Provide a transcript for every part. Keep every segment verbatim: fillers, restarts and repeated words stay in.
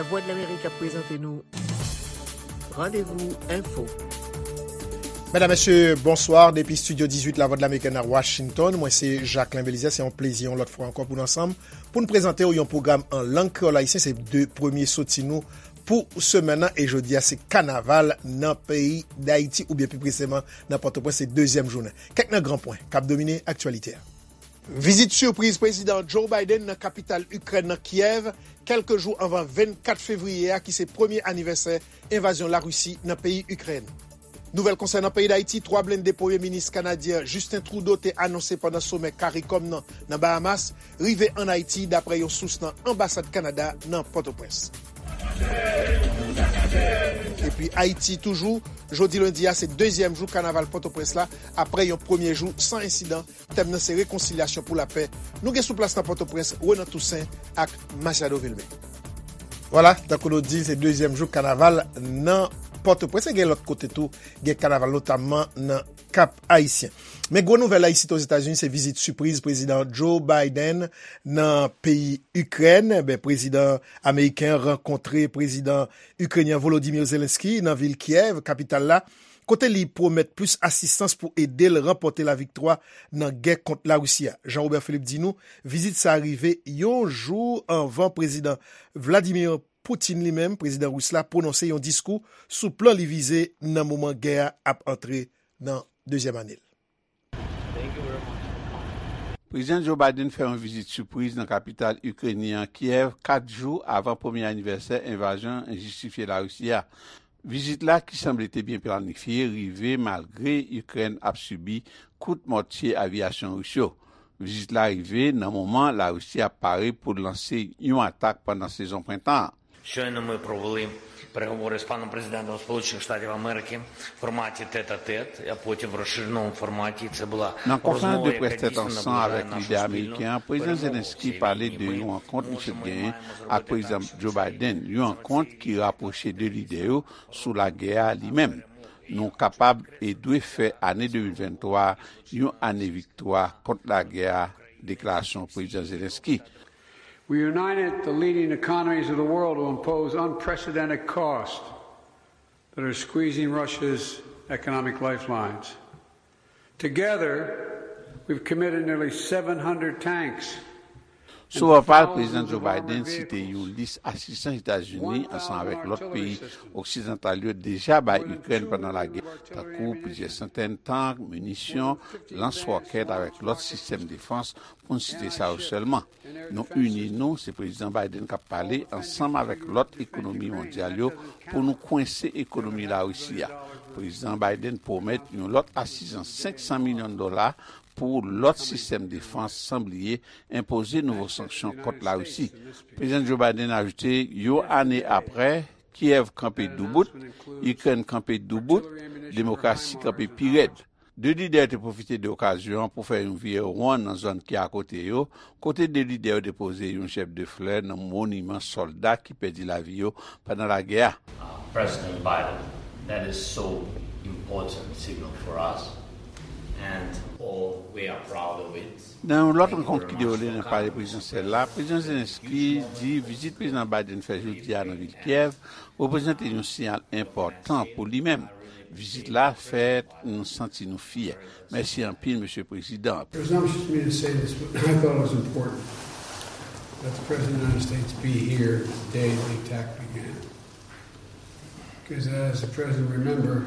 Lavwadlamerik ap prezante nou Randevou Enfo. Medam, mesye, bonswa. Depi estidyo dizuit Lavwadlamerik nan Washington, mwen se Jacquelin Belizaire. Se yon plezi yon lòt fwa ankò pou n ansanm, pou n prezante w yon pwogram an lang kreyòl ayisyen. Se de premye soti nou pou semèn nan, e jodi a se kanaval nan peyi Dayiti, oubyen pi preseman nan Pòtoprens, se dezyèm jounen. Kèk nan gran pwen k ap domine aktyalite a. Vizit sipriz Prezidan Joe Biden nan kapital Ikrèn nan Kyèv, kèlke jou anvan vennkat fevriye a, ki se premye anivèsè envazyon Larisi nan peyi Ikrèn. Nouvèl konsènan peyi Dayiti, twa blende Premye Minis kanadyen Justin Trudeau te anonse pandan somè CARICOM nan, nan Bahamas, rive ann Ayiti, daprè yon sous nan anbasad Kanada nan Pòtoprens. Epi Ayiti toujou, jodi lendi a se dezyèm jou kanaval Pòtoprens la, aprè yon premye jou san ensidan. Tèm nan se rekonsilyasyon pou lapè. Nou gen sou plas nan Pòtoprens, Renan Toussaint ak Masiado Vilmé. Vwala, tankou nou di, se dezyèm jou kanaval nan Pòtoprens. E gen lòt kote tou, gen kanaval, notamman nan Kap Ayisyen. Men gwo nouvèl la isit Ozetazini, se vizit sipriz Prezidan Joe Biden nan peyi Ikrèn. Ebyen, prezidan ameriken an rankontre prezidan ikrenyen Volodymyr Zelensky nan vil Kyèv, kapital la, kote li pwomèt plis asistans pou ede l ranpòte laviktwa nan gè kont Larisi a. Jean Robert Philippe di nou, vizit sa a rive yon jou anvan Prezidan Vladimir Putin li menm, prezidan ris la, pwononse yon diskou sou plan li vize nan moman gè a ap antre nan dezyèm ane l. Prezidan Joe Biden fè yon vizit sipriz nan kapital ikrenyen an, Kyèv, kat jou avan premye anivèsè envazyon enjistifye Larisi a. Vizit la, ki sanble te byen planifye, rive malgre Ikrèn ap sibi kout mòtye avyasyon ris yo. Vizit la rive nan moman Larisi ap pare pou l lanse yon atak pandan sezon prentan an. Щойно ми провели переговори з паном президентом Сполучених Штатів Америки в форматі тет-а-тет, а потім в розширеному форматі. Це була Nan konferans de près tèt ansanm avèk lidè ameriken an, Prezidan Zelensky pale de yon rankont misye t genyen ak Prezidan Joe Biden, yon rankont ki rapwoche de lidè yo sou lagè a li menm. Nou kapab e dwe fè ane de mil venntwa yon ane viktwa kont lagè a, deklarasyon Prezidan Zelensky. We united the leading economies of the world to impose unprecedented costs that are squeezing Russia's economic lifelines. Together, we've committed nearly seven hundred tanks. Sou pòpal, Prezidan Joe Biden site yon lis asistans Etazini ansanm avèk lòt peyi oksidantal yo deja bay Ikrèn pandan lagè, tankou plizyè santèn tank, minisyon, lans wòkèt avèk lòt sistèm defans, pou n site sa yo sèlman. Nou ini nou, se Prezidan Biden k ap pale, ansanm avèk lòt ekonomi mondyal yo, pou nou kwense ekonomi Larisi a. Prezidan Biden pwomèt yon lòt asistans senk san milyon dola pou lòt sistèm defans, san bliye enpoze nouvo sanksyon kont Larisi. Prezidan Joe Biden ajoute, yon ane aprè, Kyèv kanpe doubout, Ikrèn kanpe doubout, demokrasi kanpe pi rèd. De lidè yo te pwofite de okazyon an pou fè yon vire won nan zòn ki akote yo, kote de lidè yo depoze yon jèb de flè nan moniman sòlda ki pèdi lavi yo pandan lagè a. Uh, President Biden, that is so important signal for us, and all we are proud of it. Nan yon lòt rankont ki dewoule nan palè prezidansyèl la, Prezidan Zelensky di vizit Prezidan Biden fè jodi a nan vil Kyèv reprezante yon siyal enpòtan pou li menm. Vizit la fè nou santi nou fyè. Mèsi anpil, Mesye Prezidan. Presumptuous of me to say this, but I thought it was important that the President of the United States be here the day the attack began. Because as the President remember,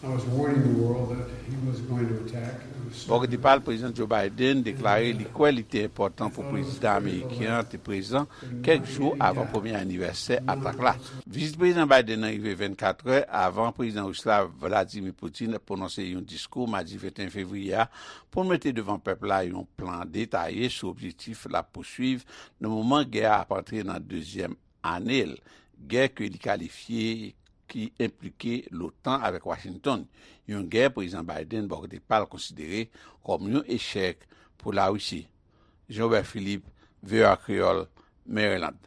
I was warning the world that he was going to attack. Bò kote pa l, Prezidan Joe Biden deklare li kwè li te enpòtan pou prezidan ameriken an te prezan kèk jou avan premye anivèsè atak la. Vizit Prezidan Biden nan rive vennkatrè avan Prezidan ris la, Vladimir Putin, pwononse yon diskou madi venteyen fevriye a pou l mete devan pèp la yon plan detaye sou objektif l ap pouswiv nan moman gè a ap antre nan dezyèm ane l, gè ke li kalifye ki enplike l'OTAN avèk Washington, yon gè Prezidan Biden bò kote pa l konsidere kòm yon echèk pou Larisi. Jean Robert Philippe, V O A Kreyòl, Maryland.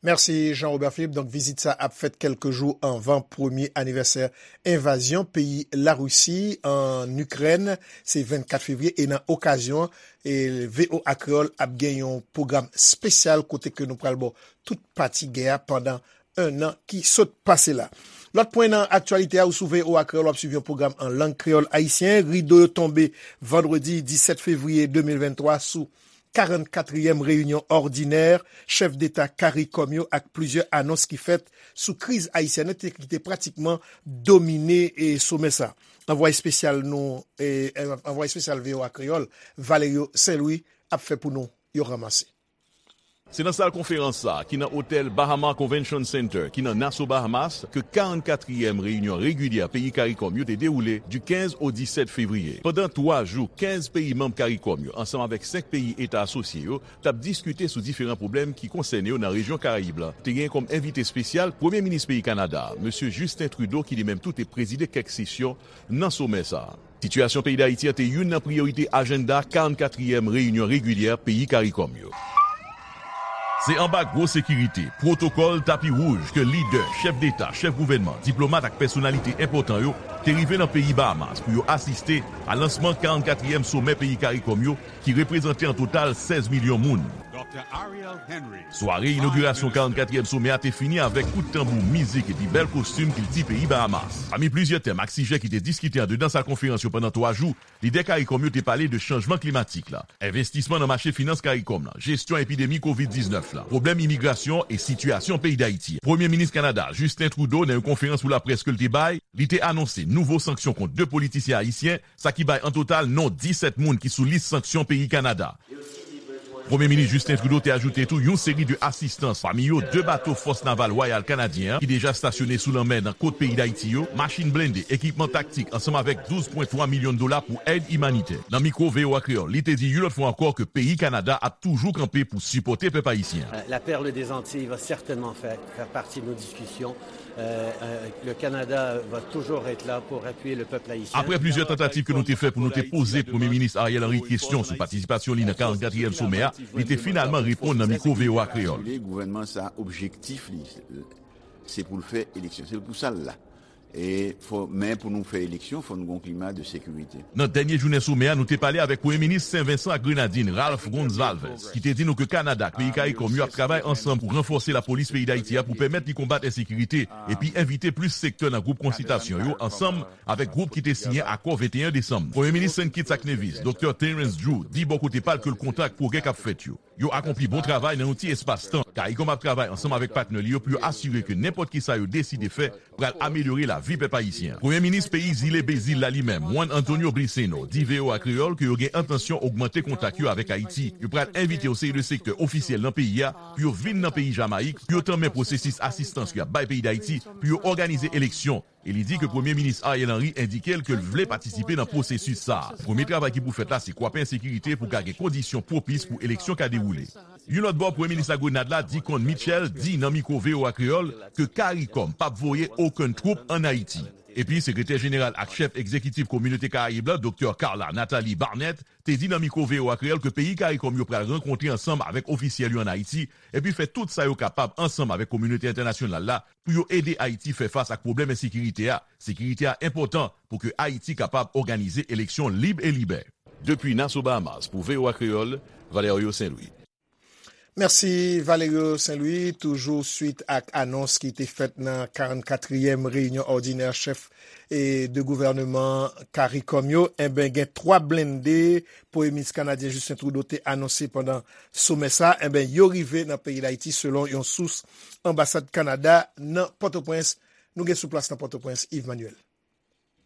Mèsi Jean Robert Philippe. Donk, vizit sa ap fèt kèlke jou anvan premye anivèsè envazyon peyi Larisi ann Ikrèn. Se vennkat fevriye e nan okazyon, e V O A Kreyòl ap gen yon pwogram espesyal kote ke nou pral ba w tout pati gè a pandan ennan ki sot pase la. Lòt pwen nan aktyalite a, ou sou V O A Kreyòl, w ap swiv yon pwogram an lang kreyòl ayisyen. Rido yo tonbe vandredi disèt fevriye de mil venntwa sou karannkatriyèm reyinyon òdinè chèf deta CARICOM yo ak plizyè anons ki fèt sou kriz ayisyèn nan te, ki te pratikman domine, e, somè sa. Anvwaye espesyal nou, e, anvwaye espesyal V O A Kreyòl, Valerio Saint-Louis, ap fè pou nou yon ranmase. Se nan sal konferans sa a, ki nan otèl Bahama Convention Center, ki nan Nassau, Bahamas, ke karannkatriyèm reyinyon regilyè peyi CARICOM yo te dewoule di kenz o disèt fevriye. Pandan twa jou, kenz peyi manm CARICOM yo, ansanm avèk senk peyi eta asosye yo, t ap diskite sou diferan pwoblèm ki konsène yo nan rejyon Karayib la. Te gen kòm envite espesyal Premye Minis peyi Kanada, Mesye Justin Trudeau, ki li menm tou te prezide kèk sesyon nan somè sa a. Sitiyasyon peyi Dayiti an te youn nan priyorite ajanda karannkatriyèm reyinyon regilyè peyi CARICOM yo. Se anba gwo sekirite, pwotokòl, tapi wouj ke lidè, chèf deta, chèf gouvènman, diplomat ak pèsonalite enpòtan yo te rive nan peyi Bahamas pou yo asiste a lansman karannkatriyèm somè peyi CARICOM yo, ki reprezante an total sèz milyon moun. Sware inogirasyon karannkatriyèm somè a te fini avèk kout tanbou, mizik epi bèl kostim kilti peyi Bahamas. Pami plizyè tèm ak sijè ki te diskite andedan sal konferans yo pandan twa jou, lidè CARICOM yo te pale de chanjman klimatik la, envestisman nan mache finans CARICOM la, jesyon epidemi kovid diznèf la, pwoblèm imigrasyon e sitiyasyon peyi Dayiti. Premye Minis Kanada, Justin Trudeau, nan yon konferans pou laprès ke l te bay, li te anonse nouvo sanksyon kont de politisyen ayisyen, sa ki bay an total non disèt moun ki sou lis sanksyon peyi Kanada. Premye Minis Justin Trudeau te ajoute tou yon seri de asistans, pami yo de bato Fòs Naval Wayal Kanadyen an ki deja stasyone sou lanmè nan kot peyi Dayiti yo, machin blende, ekipman taktik, ansanm avèk douz pwen twa milyon dola pou èd imanitè. Nan mikwo V O A Kreyòl, li te di yon lòt fwa ankò ke peyi Kanada ap toujou kanpe pou sipòte pèp ayisyen an. La perle des Antilles va certainement faire, faire partie de nos discussions. Euh, euh, le Canada va toujours être là pour appuyer le peuple haïtien. Apre plizyè tantativ ke nou te fè pou nou te poze Premye Minis Ariel Henry kesyon sou patisipasyon li nan karannkatriyèm somè a, li te finalman reponn nan mikwo V O A Kreyòl. Gouvènman sa, objektif li, se pou l fè eleksyon. Se pou sa l la. E fò, men pou nou fè eleksyon, fò nou gon klima de sekirite. Nan dènye jounen somè a, nou te pale avèk Premye Minis Sen Vensan ak Grenadin, Ralph Gonsalves, ki te di nou ke Kanada ak peyi CARICOM yo ap travay ansanm pou ranfòse lapolis peyi Dayiti a pou pèmèt li konbat ensekirite epi envite plis sektè nan gwoup konsiltasyon yo ansanm avèk gwoup ki te siyen akò venteyen desanm. Premye Minis Saint Kitts ak Nevis, Doktè Terrence Drew, di bò kote pa l ke l kontan ak pwogrè k ap fèt yo. Yo akonpli bon travay nan yon ti espas tan. CARICOM ap travay ansanm avèk patnè li yo pou yo asire ke nenpòt kisa yo deside fè pral amelyore lavi pèp ayisyen an. Premye Minis peyi Zile Bezil la li menm, Juan Antonio Briceño, di V O A Kreyòl ke yo gen entansyon ogmante kontak yo avèk Ayiti. Yo pral envite yon seri de sektè ofisyèl nan peyi a pou yo vin nan peyi Jamayik pou yo tanmen pwosesis asistans y ap bay peyi Dayiti pou yo òganize eleksyon. E li di ke Premye Minis Ariel Henry endike l ke l vle patisipe nan pwosesis sa a. Premye travay ki pou fèt la se kwape ensekirite pou ka gen kondisyon pwopis pou eleksyon ka dewoule. Yon lòt bò, Premye Minis Lagrenad la, Dickon Mitchell, di nan mikwo V O A Kreyòl ke CARICOM p ap voye okenn twoup ann Ayiti. Epi, Sekretè Jeneral ak Chèf Egzekitif Kominote Karayib la, Doktè Carla Nathalie Barnett, te di nan mikwo V O A Kreyòl ke peyi CARICOM yo pral rankontre ansanm avèk ofisyèl yo ann Ayiti, epi fè tout sa yo kapab ansanm avèk kominote entènasyonal la pou yo ede Ayiti fè fas ak pwoblèm ensekirite a. Sekirite a enpòtan pou ke Ayiti kapab òganize eleksyon lib e libè. Depi Nassau, Bahamas, pou V O A Kreyòl, Valerio Saint-Louis. Mèsi, Valerio Saint-Louis. Toujou swit ak anons ki te fèt nan karannkatriyèm reyinyon òdinè chèf, e, de gouvèneman CARICOM yo, enben, gen twa blende Premye Minis kanadyen Justin Trudeau te anonse pandan somè sa, enben, yo rive nan peyi Dayiti, selon yon sous anbasad Kanada nan Pòtoprens. Nou gen sou plas nan Pòtoprens, Yves Manuel.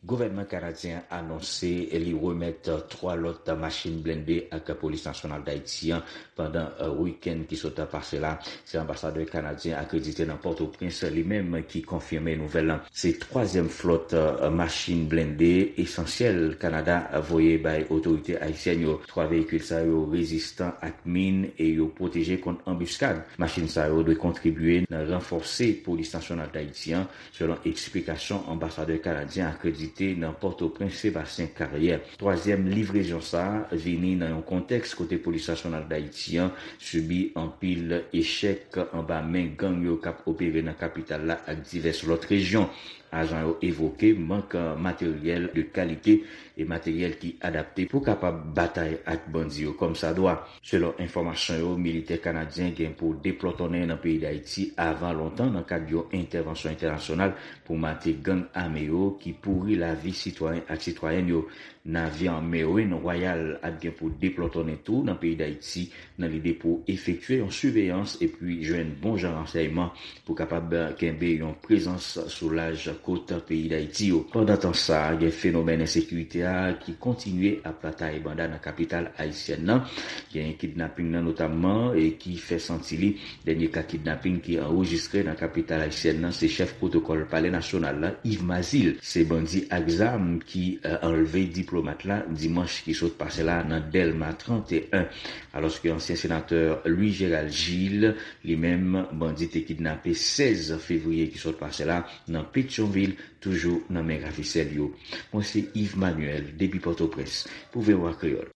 Gouvènman kanadyen an anonse li remèt twa lòt machin blende ak Polis Nasyonal Dayiti an pandan wikenn ki sot pase la. Se anbasadè kanadyen akredite nan Pòtoprens li menm ki konfime nouvèl lan. Se twazyèm flòt machin blende esansyèl Kanada voye bay otorite ayisyèn yo. Twa veyikil sa yo rezistan ak min e yo pwoteje kont anbiskad. Machin sa yo dwe kontribye nan ranfòse Polis Nasyonal Dayiti an, selon eksplikasyon anbasadè kanadyen akredite te nan Pòtoprens Sebastyen Karyè. Twazyèm livrezon sa a vini nan yon kontèks kote Polis Nasyonal Dayiti an sibi anpil echèk anba men gang yo k ap opere nan kapital la ak divès lòt rejyon. Ajan yo evoke mank materyèl de kalite e materyèl ki adapte pou kapab batay ak bandi yo kòmsadwa. Selon enfòmasyon yo, militè kanadyen gen pou deplòtonnen nan peyi Dayiti avan lontan nan kad yon entèvansyon entènasyonal pou mate gang ame yo ki pouri lavi sitwayen ak sitwayèn yo. Navyan Merwin Royal ap gen pou deplòtonnen tou nan peyi Dayiti nan lide pou efektye yon siveyans epi jwenn bon jan ransèyman pou kapab kenbe yon prezans sou laj kot peyi Dayiti yo. Pandan tan sa a, gen fenomèn ensekirite a ki kontinye ap batay banda nan kapital ayisyèn nan. Gen kidnaping nan notamman e ki fè santi li. Dènye ka kidnaping ki anrejistre nan kapital ayisyèn nan se chèf pwotokòl Palè Nasyonal la, Yves Mazil. Se bandi ak zam ki eh, anlve diplomat la dimanch ki sot pase la nan Dèlma trannteyen. Alòske ansyen senatè Louis Gérald Gilles, li menm, bandi te kidnape sèz fevriye ki sot pase la nan Petyonvil, toujou nan men ravisè l yo. Mwen se Yves Manuel, depi Pòtoprens, pou V O A Kreyòl.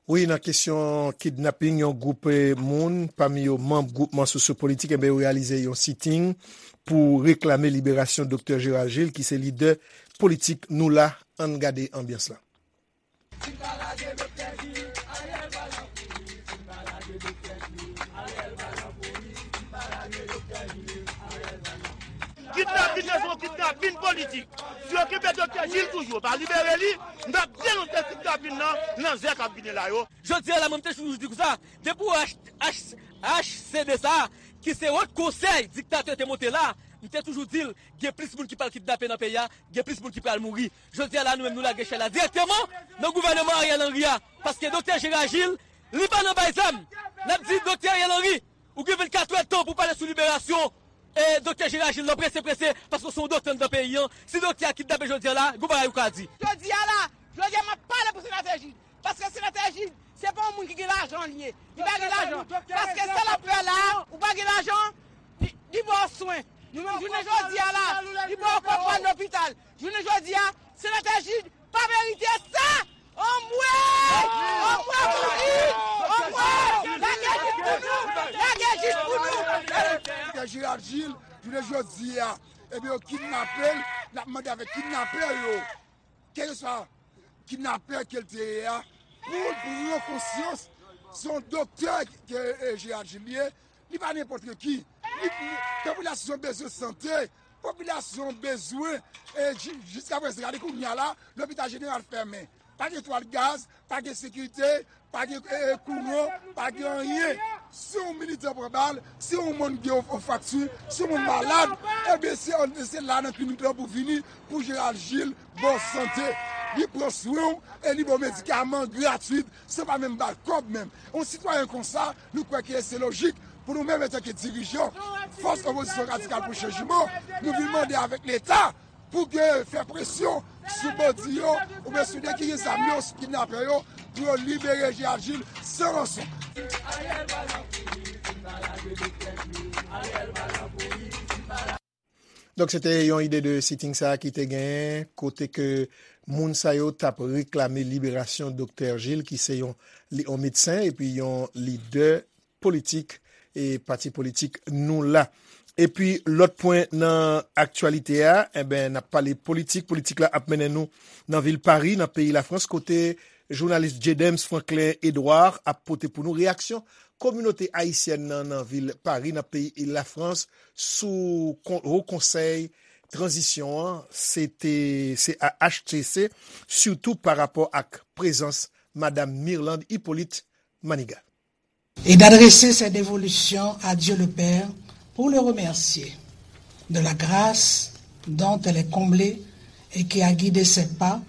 Wi, nan kesyon kidnaping yon gwoup eh, moun, pami yo manm gwoupman sosyopolitik, enben yo reyalize yon siting pou reklame liberasyon Doktè Gérald Gilles, ki se lidè politik Nou La. Ann gade anbyans la. Kidnapin nan se yon kidnapin politik. Si yo kenbe Doktè Gilles toujou, yo pa libere li, n ap denonse kidnapin nan nan zè k ap vini la yo. Jodi a la, mwen, m te toujou di konsa, depi w H, H, H C D sa, ki se wòt konsèy diktatè te monte la, m te toujou di l, gen plis moun ki pral kidnape nan peyi a, gen plis moun ki pral mouri. Jodi a la, nou menm, nou lage echay la dirèkteman nan gouvènman Ariel Henry a, paske Doktè Gérald Gilles, li pa nan bay zam. N ap di Doktè Ariel Henry, ou gen vennkat è tan pou pale sou liberasyon e Doktè Gérald Gilles nan prese prese, paske se yon doktè anndan peyi an. Si doktè a kidnape jodi a la, gon bagay ou ka di. Jodi a la, jodi a m ap pale pou senatè Gilles. Paske senatè Gilles, se pa yon moun ki gen lajan li ye. Li pa gen lajan. Paske sa l ap fè la, ou pa gen lajan, li, li ba w swen. Nou menm jounen jodi a la, li ba w kòb pral lopital. Jounen jodi a, senatè Gilles pa merite sa. Anmwe! Anmwe pou li! Anmwe! Lage Gilles pou nou! Lage Gilles pou nou! Doktè Gérald Gilles, jounen jodi a, ebyen, yo kidnape l, l ap mande avèk kidnapè yo. Kèlkeswa kidnapè ke l te ye a, pou l pran konsyans, se yon doktè ke, eh, Gérald Gilles ye, li pa nenpòt ki. Li, li, popilasyon bezwen sante, popilasyon bezwen, eh, ji-, jiskaprezan, gade kounye a la, lopital jeneral fèmen. Pa gen twal gaz, pa gen sekirite, pa gen, eh, eh, kouran, pa gen anyen. Si yon militan pran bal, si yon moun gen yon, yon frakti, si yon moun malad, ebyen, se, se la nan klinik lan pou vini, pou Gérald Gilles ba w sante. Li pran swen w e li ba w medikaman gratwit, san pa menm ba l kòb menm. Yon sitwayen konsa, nou kwè ke se lojik pou nou menm, antanke dirijan Fòs Opozisyon Radikal pou Chanjman, nou vin mande avèk Leta pou ke fè presyon sou bandi yo, oubyen sou nèg ki gen zam yo, sou kidnapè yo, pou yo libere Gérald Gilles san ranson. Donk, se te yon ide de sitting sa a ki te genyen, kote ke moun sa yo t ap reklame liberasyon Doktè Gilles, ki se yon, li, yon medsen epi yon lidè politik e pati politik Nou La. Epi, lòt pwen nan aktyalite a, enben, n ap pale politik. Politik la ap mennen nou nan vil Pari, nan peyi Lafrans, kote jounalis Jedems Franklin Edouard ap pote pou nou reyaksyon kominote ayisyèn nan, nan vil Pari, nan peyi Lafrans, sou kon-, Wo Konsèy Tranzisyon an, se te, se a H T C, sitou pa rapò ak prezans Madam Mirlande Hyppolite Manigat. Et d'adresser ses dévolutions à Dieu le Père pour le remercier de la grâce dont elle est comblée et qui a guidé ses pas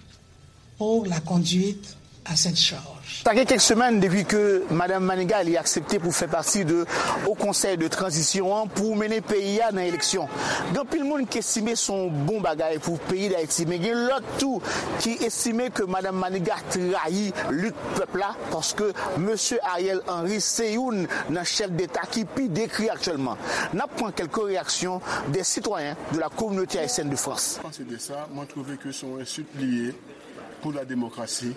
pour la conduite à cette charge. Sa gen kèk semèn depi ke Madanm Maniga li aksepte pou fè pati de Haut Conseil de Transition an pou mennen peyi a nan eleksyon. Gen anpil moun ki estime se yon bon bagay pou peyi Dayiti, men gen lòt tou ki estime ke Madanm Maniga trayi lit pèp la, paske Mesye Ariel Henry se youn nan chèf deta ki pi dekri aktyèlman. N ap pran kèlke reyaksyon de sitwayen de la communauté haïtienne de France. Panse de sa, mwen twouve ke se yon ensilt li ye pou la demokrasi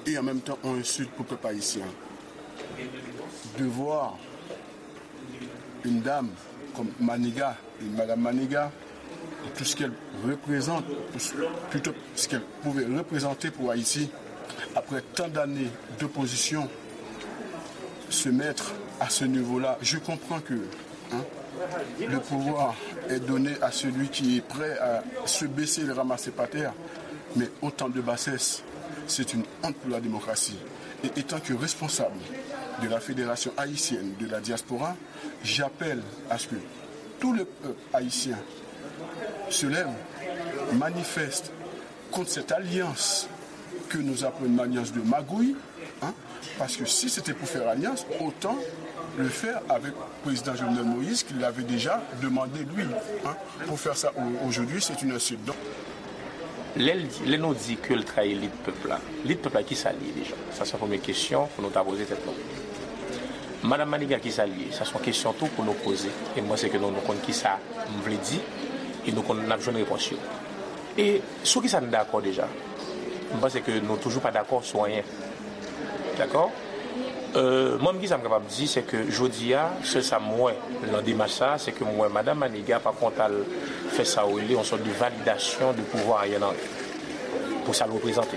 e an menm tan yon ensilt pou pèp ayisyen. De voir une dame comme Maniga, une Madame Maniga, pour tout ce qu'elle représente, pour ce- plutôt ce qu'elle pouvait représenter pour Haïti, après tant d'années d'opposition, se mettre à ce niveau-là, je comprends que, hein, le pouvoir est donné à celui qui est prêt à se baisser et le ramasser par terre, mais autant de bassesse, c'est une honte pour la démocratie. Et étant que responsable de la Fédération haïtienne de la diaspora, j'appelle à ce que tout le peuple haïtien se lève, manifeste contre cette alliance que nous appelons une alliance de magouille, hein, parce que si c'était pour faire alliance, autant le faire avec le président Jovenel Moïse, qui l'avait déjà demandé lui, hein, pour faire ça au- aujourd'hui, c'est une insulte. Donc, Lè, l di- lè nou di ke l trayi lit pèp la, lit pèp la, kisa l ye deja? Sa se yon premye kesyon pou nou ta poze tèt nou. Madanm Maniga, kisa l ye? Sa se yon kesyon tou pou nou poze. E m panse ke nou, nou konn kisa m vle di, e nou konn, n ap jwenn repons yo. E sou kisa n dakò deja? M panse ke nou toujou pa dakò sou anyen. Dakò? Euh, mwen, kisa m kapab di, se ke jodi a, sèl sa m wè nan demach sa, se ke m wè Madanm Maniga pa konn al fè sa yo rele yon sòt de validasyon de pouvwa Ariel Henry. Pou sa l reprezante.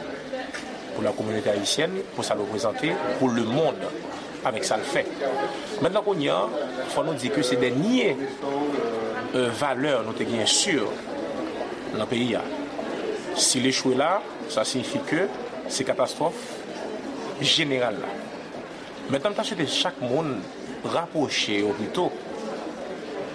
Pou la communauté haïtienne, pou sa l reprezante, pou le monde, avèk sa l fè. Mentnan kounye a, fò nou di ke se dènye, euh, valè nou te genyen si nan peyi a. Si l echwe la, sa siyifi ke se katastwòf jeneral la. Mentnan, m ta swete chak moun rapwoche yo pito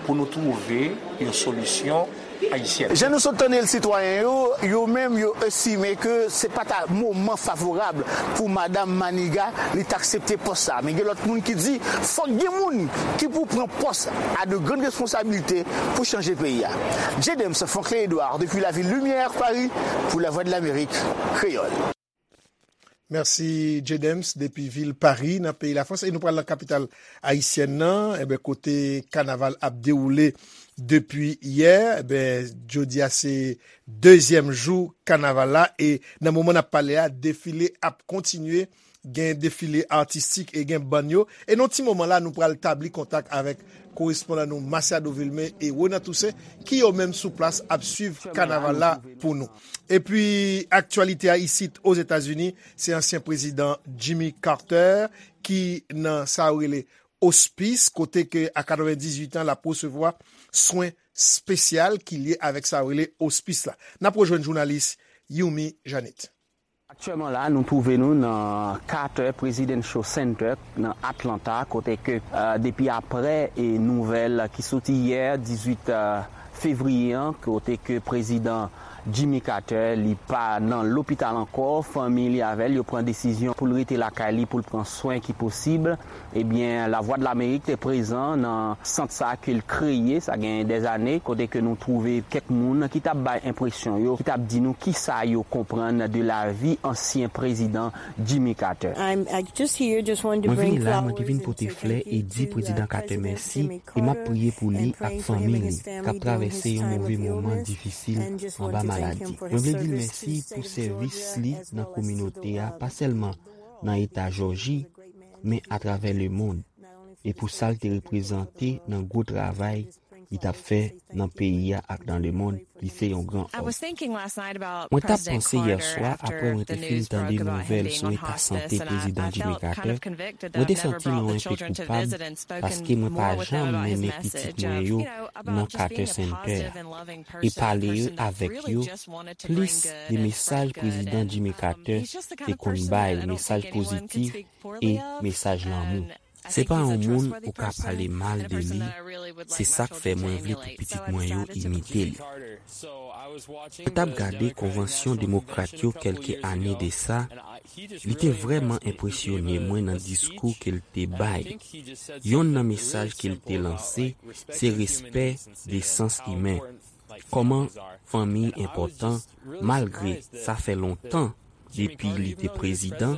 pou nou twouve yon solisyon ayisyèn. Jan nou sot tande l, sitwayen yo, yo menm, yo estime ke se pa ta moman favorab pou Madanm Maniga li t aksepte pòs sa. Men gen lòt moun ki di, fòk gen moun ki pou pran pòs a de grann responsabilite pou chanje peyi a. J. Dems, Franklin Edouard, depuis la ville Lumière, Paris, pour la Voix de l'Amérique, Créole. Mèsi, J. Dems, depi vil Pari, nan peyi Lafrans. E nou pral nan kapital ayisyèn nan, enben, kote kanaval ap dewoule depi yè. Enben, jodi a se dezyèm jou kanaval la. E nan moman n ap pale a, defile ap kontinye. Gen defile atistik e gen bann yo. E nan ti moman la, nou pral tabli kontak avèk korespondan nou Masiado Vilmé e Ronan Toussaint, ki yo menm sou plas ap swiv kanaval la pou nou. Epi, aktyalite a isit Ozetazini, se ansyen prezidan Jimmy Carter ki nan sa yo rele ospis, kote ke a katrevendizuit an, l ap resevwa swen espesyal ki lye avèk sa yo rele ospis la. N ap rejwenn jounalis Yumi Janit. Aktyèlman la, nou twouve nou nan Carter Presidential Center nan Atlanta, kote ke, eh, depi aprè, eh, nouvèl ki soti yè, dizuit, eh, fevriye an, kote ke prezidan Jimmy Carter, li pa nan lopital ankò, fanmi li avè l, yo pran desizyon pou l rete lakay li, pou l pran swen ki posib. Ebyen, Lavwadlamerik te prezan nan sant sa ke l kreye, sa gen dèzane, kote ke nou twouve kèk moun ki t ap bay enpresyon yo, ki t ap di nou kisa yo konprann de lavi ansyen prezidan Jimmy Carter. Mwen vini la, mwen te vin pote flè e di Prezidan Carter mèsi, e m ap priye pou li ak fanmi li, k ap travèse yon move moman difisil anba maladi. Mwen vle di l mèsi pou sèvis li nan kominote a, pa sèlman nan eta Jòji, men atravè lemonn, e pou sa l te reprezante nan gwo travay li t ap fè nan peyi a ak nan lemonn, li se yon gran òm. Mwen t ap panse yè swa, apre mwen te fin tande nouvèl sou eta sante Prezidan Jimmy Carter, mwen te santi mwen yon enpe koupab, paske mwen pa janm mennen pitit mwen yo nan Carter Center a. E pale avèk yo, plis de mesaj Prezidan Jimmy Carter te konn bay, mesaj pozitif e mesaj lanmou. Se pa yon moun ou ka pale mal de li, se sa k fè mwen vle pou pitit mwen yo imite li. Mwen t ap gade konvansyon demokrat yo kèlke ane de sa, li te vrèman enpresyone mwen nan diskou ke l te bay. Yonn nan mesaj ke l te lanse, se respè, desans imen. Kòman fanmi enpòtan, malgre sa fè lontan depi li te prezidan,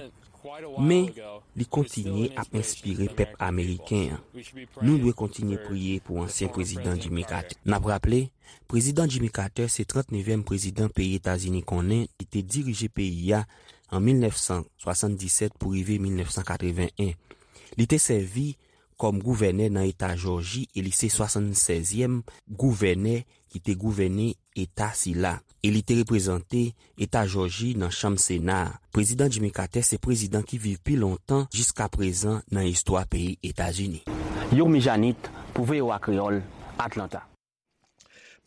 men li kontinye ap enspire pèp ameriken an. Nou dwe kontinye priye pou ansyen prezidan Jimmy Carter. N ap raple, prezidan Jimmy Carter se trannevèm prezidan peyi Etazini konnen, li te dirije peyi a an mil nèf san swasanndisèt pou rive mil nèf san katreven en. Li te sèvi kòm gouvènè nan eta Jòji e li se swasannsèzyèm gouvènè ki te gouvène eta sila, e li te reprezante eta Jòji nan Chanm Sena a. Prezidan Jimmy Carter se prezidan ki viv pi lontan jiskaprezan nan istwa peyi Etazini. Yomi Janit pou V O A Kreyòl, Atlanta.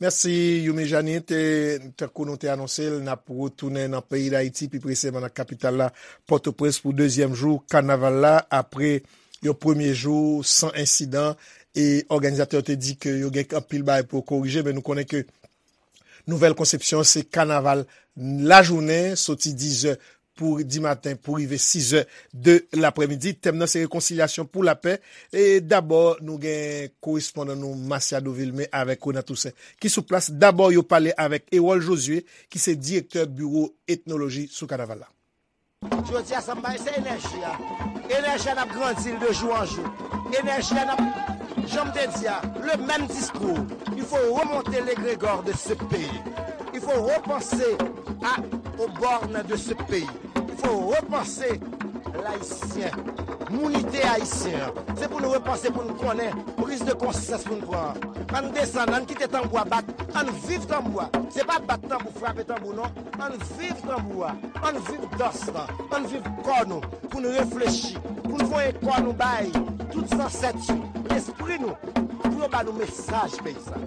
Mèsi, Youmi Janit. E, tankou nou te anonse l, n ap retounen nan peyi Dayiti, pi presizeman nan kapital la, Pòtoprens, pou dezyèm jou kanaval la, apre yon premye jou san ensidan. E òganizatè yo te di ke yo gen anpil bagay pou yo korije, men nou konnen ke Nouvèl Konsepsyon se kanaval lajounen, soti dizè pou dimaten pou rive sizè de laprèmidi. Tèm nan se rekonsilyasyon pou lapè. E dabò, nou gen korespondan nou Masiado Vilmé avèk Renan Toussaint ki sou plas. Dabò, yo pale avèk Erol Josué, ki se direktè biwo etnoloji sou kanaval la. Jodi a, sa m bay, se enèji a. Enèji a, n ap grandi l de jou an jou. Enèji a, n ap, jan m te di a, le menm diskou. Il faut remonter l'égrégore de ce pays. Il faut repenser à, aux bornes de ce pays. Il faut repenser l'haïtien, mounite ayisyen an. Se pou nou repanse, pou nou konnen, priz de konsyans pou nou pran. Ann desann, ann kite tanbou a bat, ann viv tanbou a. Se pa bat tanbou, frape tanbou non. Ann viv tanbou a, ann viv dans lan, ann viv kò nou, pou nou reflechi, pou nou voye kò nou bay tout zansèt yo, lespri nou, pou yo ba nou mesaj peyi sa.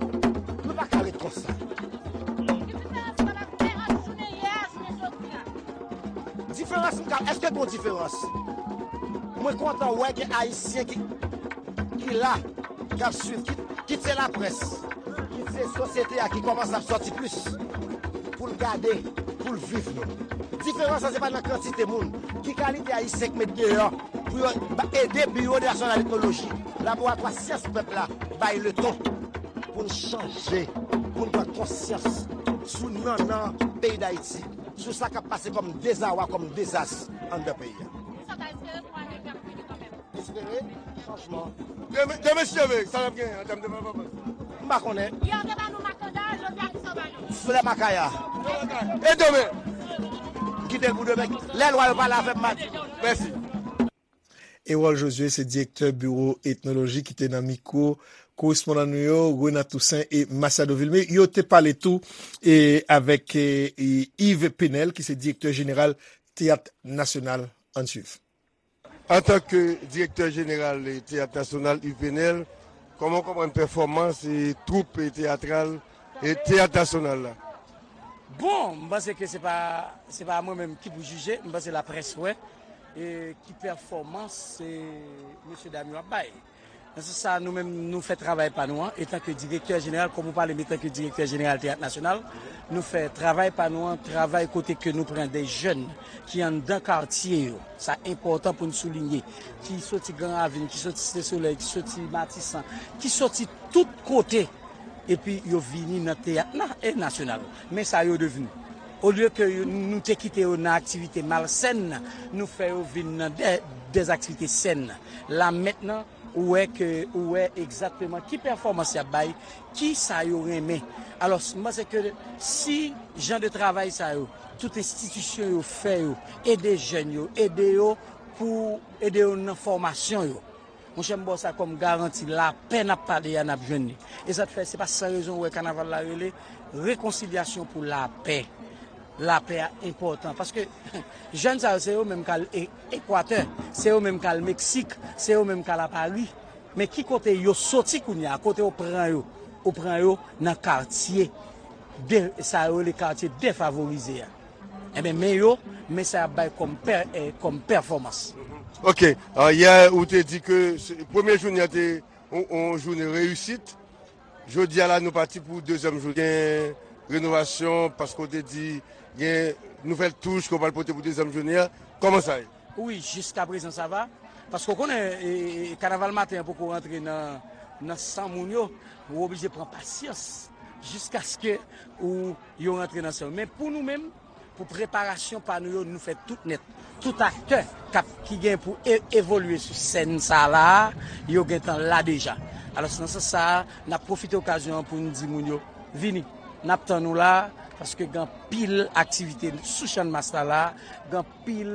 Nou pa ka ret konsa. Diferans m ka, èske gon diferans? Mwen kontan wè gen Ayisyen ki, ki la, k ap swiv, ki, ki se laprès, ki se sosyete a ki kòmanse ap sòti plis pou l gade, pou l viv nou. Diferans lan se pa nan kantite moun, ki kalite Ayisyen k met deyò pou yo ede Biwo Nasyonal Etnoloji, Laboratwa Syans Pèp la, bay leton pou n chanje, pou n pran konsyans sou nannan peyi Dayiti, sou sa k ap pase kòm dezawa, kòm dezas anndan peyi a. Espere chanjman. Demen, demen si Dye vle, sa n ap genyen an tèm de pèfòmans? M pa konnen. Yè yo te ba nou makanda, jodi a kisa yo ba nou? Flè makaya. E demen? M kite l pou demen. Lè lwa yo pale avè m, m a di nou. Mèsi. Erol Josué se direktè biwo etnoloji ki te nan mikwo korespondan nou yo, Renan Toussaint e Masiado Vilmé. Yo te pale tou e avèk e, e, Yves Penel, ki se direktè jeneral Teyat Nasyonal. Ann swiv. Antanke direktè jeneral Teyat Nasyonal, Yves Penel, kòman w konprann pèfòmans e twoup teyatral e Teyat Nasyonal la? Bon, m panse ke se pa, se pa mwen menm ki pou jije, m panse laprès wè e ki pèfòmans e mesye dam yo ap bay. Nan sans sa, nou menm, nou fè travay pa nou an, etanke direktè jeneral, kòm ou pale m etanke direktè jeneral Teyat Nasyonal, nou fè travay pa nou an, travay kote ke nou pran de jèn ki anndan katye yo, sa enpòtan pou n soulinye, ki soti Gran Ravin, ki soti Site Solèy, ki soti Matisan, ki soti tout kote, epi yo vini nan teyat na, e nasyonal. Men sa yo devni. Olye ke yo, nou te kite yo nan aktivite malsèn, nou fè yo vin nan de, de aktivite sèn. La mentnan, ou wè ke, ou wè egzakteman ki pèfòmans y ap bay, ki sa yo renmen. Alò, m panse ke si jan de travay sa yo, tout enstitisyon yo fè yo, ede jèn yo, ede yo pou ede yo nan fòmasyon yo. Monchè, m ba w sa kòm garanti, lapè n ap pale a, n ap jwenn li. E sa k fè, se pa san rezon ou wè kanaval la rele rekonsilyasyon pou lapè. Lapè a enpòtan. Paske jèn sa yo, se yo menm k al e, Ekwatè, se yo menm k al Meksik, se yo menm k al a Pari. Men ki kote yo soti kounye a, kote yo pran yo? Ou pran yo nan katye de, sa yo rele katye defavorize a. Enben, men yo, men sa y ap bay kòm pè, eh, kòm pèfòmans. Ok, yè ou te di ke premye jounen an te yon jounen reyisit. Jodi a la nou pati pou dezyèm jounen renovasyon, paske ou te di gen nouvèl touch ke w pral pote pou dezyèm jounen an. Kòman sa ye? Wi, jiskaprezan sa va. Paske w konnen, e, e, kanaval maten an poko rantre nan, nan san moun yo. Ou oblije pran pasyans jiskaske ou, yo rantre nan san yo. Men pou nou menm, pou preparasyon pa nou yo, nou fè tout nèt. Tout aktè k ap, ki gen pou e, evolye sou sèn sa la a, yo gentan la deja. Alò, nan sans sa a, n ap pwofite okazyon an pou n di moun yo, vini. N ap tann nou la, paske gen anpil aktivite sou Channmas la la, gen anpil,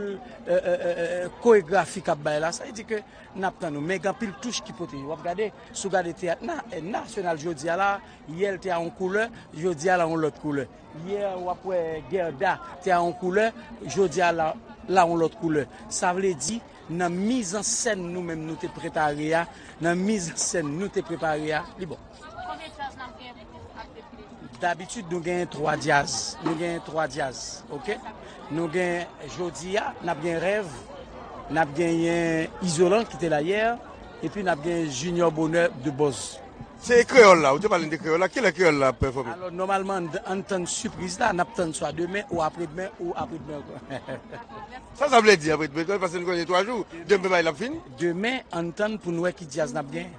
e, e, e, e, koregrafi k ap bay la. Sa vle di ke n ap tann nou. Men gen anpil touch ki pote. W ap gade, si w gade teyat na, nasyonal jodi a la, yè l te a yon koulè, jodi a la yon lòt koulè. Yè w ap wè Gèda te a yon koulè, jodi a la, la yon lòt koulè. Sa vle di, nan mizansèn nou menm nou te prepare a, nan mizansèn nou te prepare a, li bon. Konbyen djaz n ap gen pou ap defile? Dabitid, nou genyen twa djaz. Nou genyen twa djaz, oke? Nou gen, jodi a, n ap gen Rèv, n ap genyen Izolan ki te la yè, epi n ap gen Junior Bonheur de Buzz. Se kreyòl la, ou te pale de kreyòl la. Kilè kreyòl la ap pèfòme? Alò, nòmalman, n, ann tann sipriz la, n ap tann swa demen, ou apredmen, ou apredmen ankò. Sa, sa vle di apredmen, paske nou konnen twa jou, demen bay la ap fini. Demen, ann tann pou n wè ki djaz n ap genyen.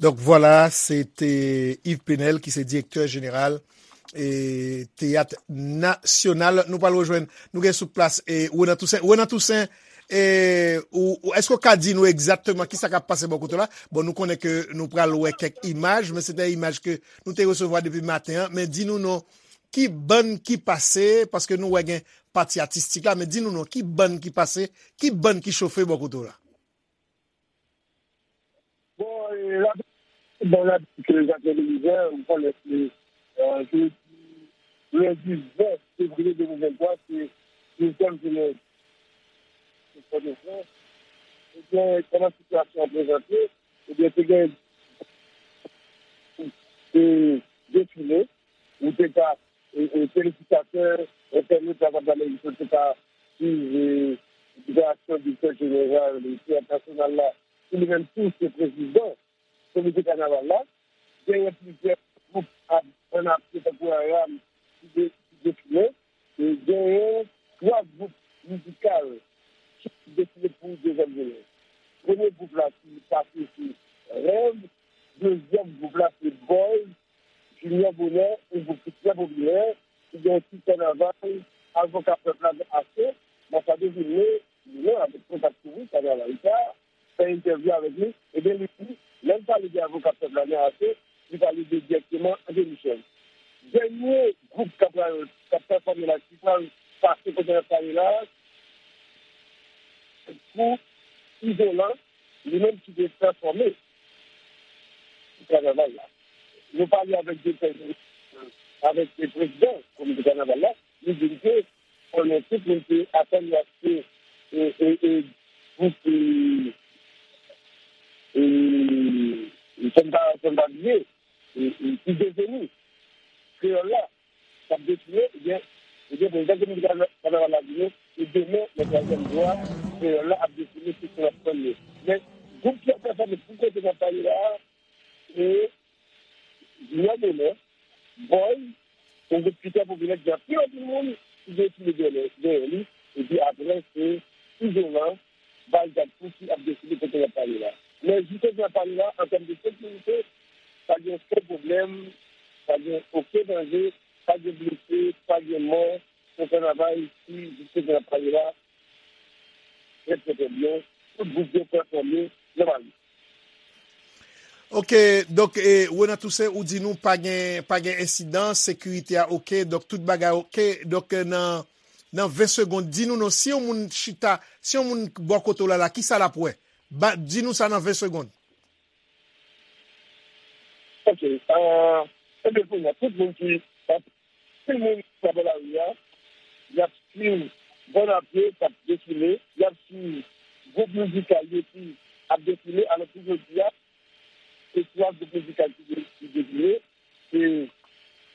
Donk, vwala, se te Yves Penel ki se direktè jeneral, e, Teyat Nasyonal. Nou pral rejwenn, nou gen sou plas, e, Renan Toussaint. Renan Toussaint, e, ou, ou, èske w ka di nou egzakteman kisa k ap pase bò kote w la? Bon, nou konnen ke nou pral wè kèk imaj, men se te imaj ke nou te resevwa depi maten an. Men di nou non, ki bann ki pase, paske nou wè gen pati atistik la, men di nou non, ki bann ki pase, ki bann ki chofe bò kote w la? Bon, e, la, bon, la, ke Jacques Belizaire, ou konnen se, e, jodi, lendi ven fevriye de mil venntwa, se dezyèm jounen Fòdefrans. Ebyen, kòman sitiyasyon an prezante? Ebyen, te gen, e, defile, ou te ka, e, e, telespektatè, entènot, lakòt Amerik yo te ka swiv, e, deklarasyon direktè jeneral, e, Teyat Nasyonal la, ki li menm tou se prezidan Komite kanaval la, genyen plizyè gwoup ap, ann apye tankou Aram ki de-, ki defile, e genyen twa gwoup mizikal ki defile pou dezyèm jounen. Premye gwoup la ki pase se Rèv, dezyèm gwoup la se Boys, Junior Bonheur, yon gwoup ki trè popilè, ki gen yon tit kanaval, Avoka Pèp la nan Ase, Masadou Vilmé, li menm avèk kontak kouvri kanaval sa, fè entèvyou avèk li, ebyen, li di, lè l pale de Avoka Pèp la nan Ase, li pale de dirèkteman André Michel. Dènye gwoup k ap pral, k ap pèfòme la, ki pral pase kote n ap pale la, pou Izolan, li menm ki te pèfòme kanaval la. Nou pale avèk direktè, avèk prezidan komite kanaval la, li di n ke konnen tout moun te atann y ap fè, e, e, e, gwoup, e, e, fò n pa, fò n pa bliye, e, e, ki deveni kreyòl la, k ap defile, ebyen, ebyen, prezidan komite kanaval la di nou, e demen, nan twazyèm jou a, kreyòl la ap defile, tout moun ap tann li. Men, gwoup ki ap pèfòme pou kote n ap pale la a, se Junior Bonheur, Boy, yon gwoup ki trè popilè, ki gen anpil, anpil moun ki gen sou dèyè, dèyè li, epi apre, se Izolan, Bal Gad Kou ki ap deside kote n ap pale la. Men, jis kote n ap pale la, an tèm de sekirite, pa gen okenn pwoblèm, pa gen okenn danje, pa gen blese, pa gen mò, se kanaval ki, jis kote n ap pale la, trè, trè, trè byen. Tout gwoup yo pèfòme nòmalman. Ok, donk, e, Renan Toussaint, ou di nou pa gen, pa gen ensidan, sekirite a ok, donk tout bagay ok. Donk, e, nan, nan ven segonn, di nou non, si yon moun chita, si yon moun bò kote w la, la, kisa l ap wè? Ba, di nou sa nan ven segonn. Ok, e, ebyen, kounye a, tout moun ki, tout moun ki nan lari a, y ap swiv bann a pye k ap defile, y ap swiv gwoup mizikal yo ki ap defile, alò pou jodi a, se twa gwoup mizikal ki de-, ki defile, se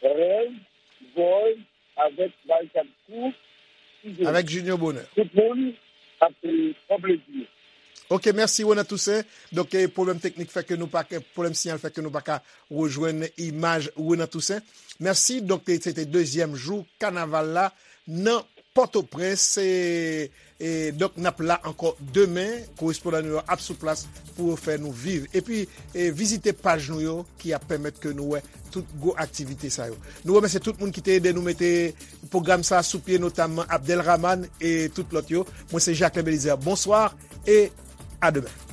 Rèv, Boy, avèk Barikad Kou, Avèk Junior Bonheur. Tout moun ap pran plezi. Ok, mèsi Renan Toussaint. Donk, eh, pwoblèm teknik fè ke nou pa, pwoblèm siyal fè ke nou pa ka rejwenn imaj Renan Toussaint. Mèsi. Donk, eh, se te dezyèm jou kanaval la nan Pòtoprens. E, e, donk, n ap la ankò demen. Korespondan nou yo ap sou plas pou yo fè nou viv. Epi, eh, vizite paj nou yo ki ap pèmèt ke nou wè tout gwo aktivite sa yo. Nou remèsye tout moun ki te ede nou mete pwogram sa a sou pye, notamman Abdel Rahman e tout lòt yo. Mwen se Jacquelin Belizaire. Bonswa e a demen.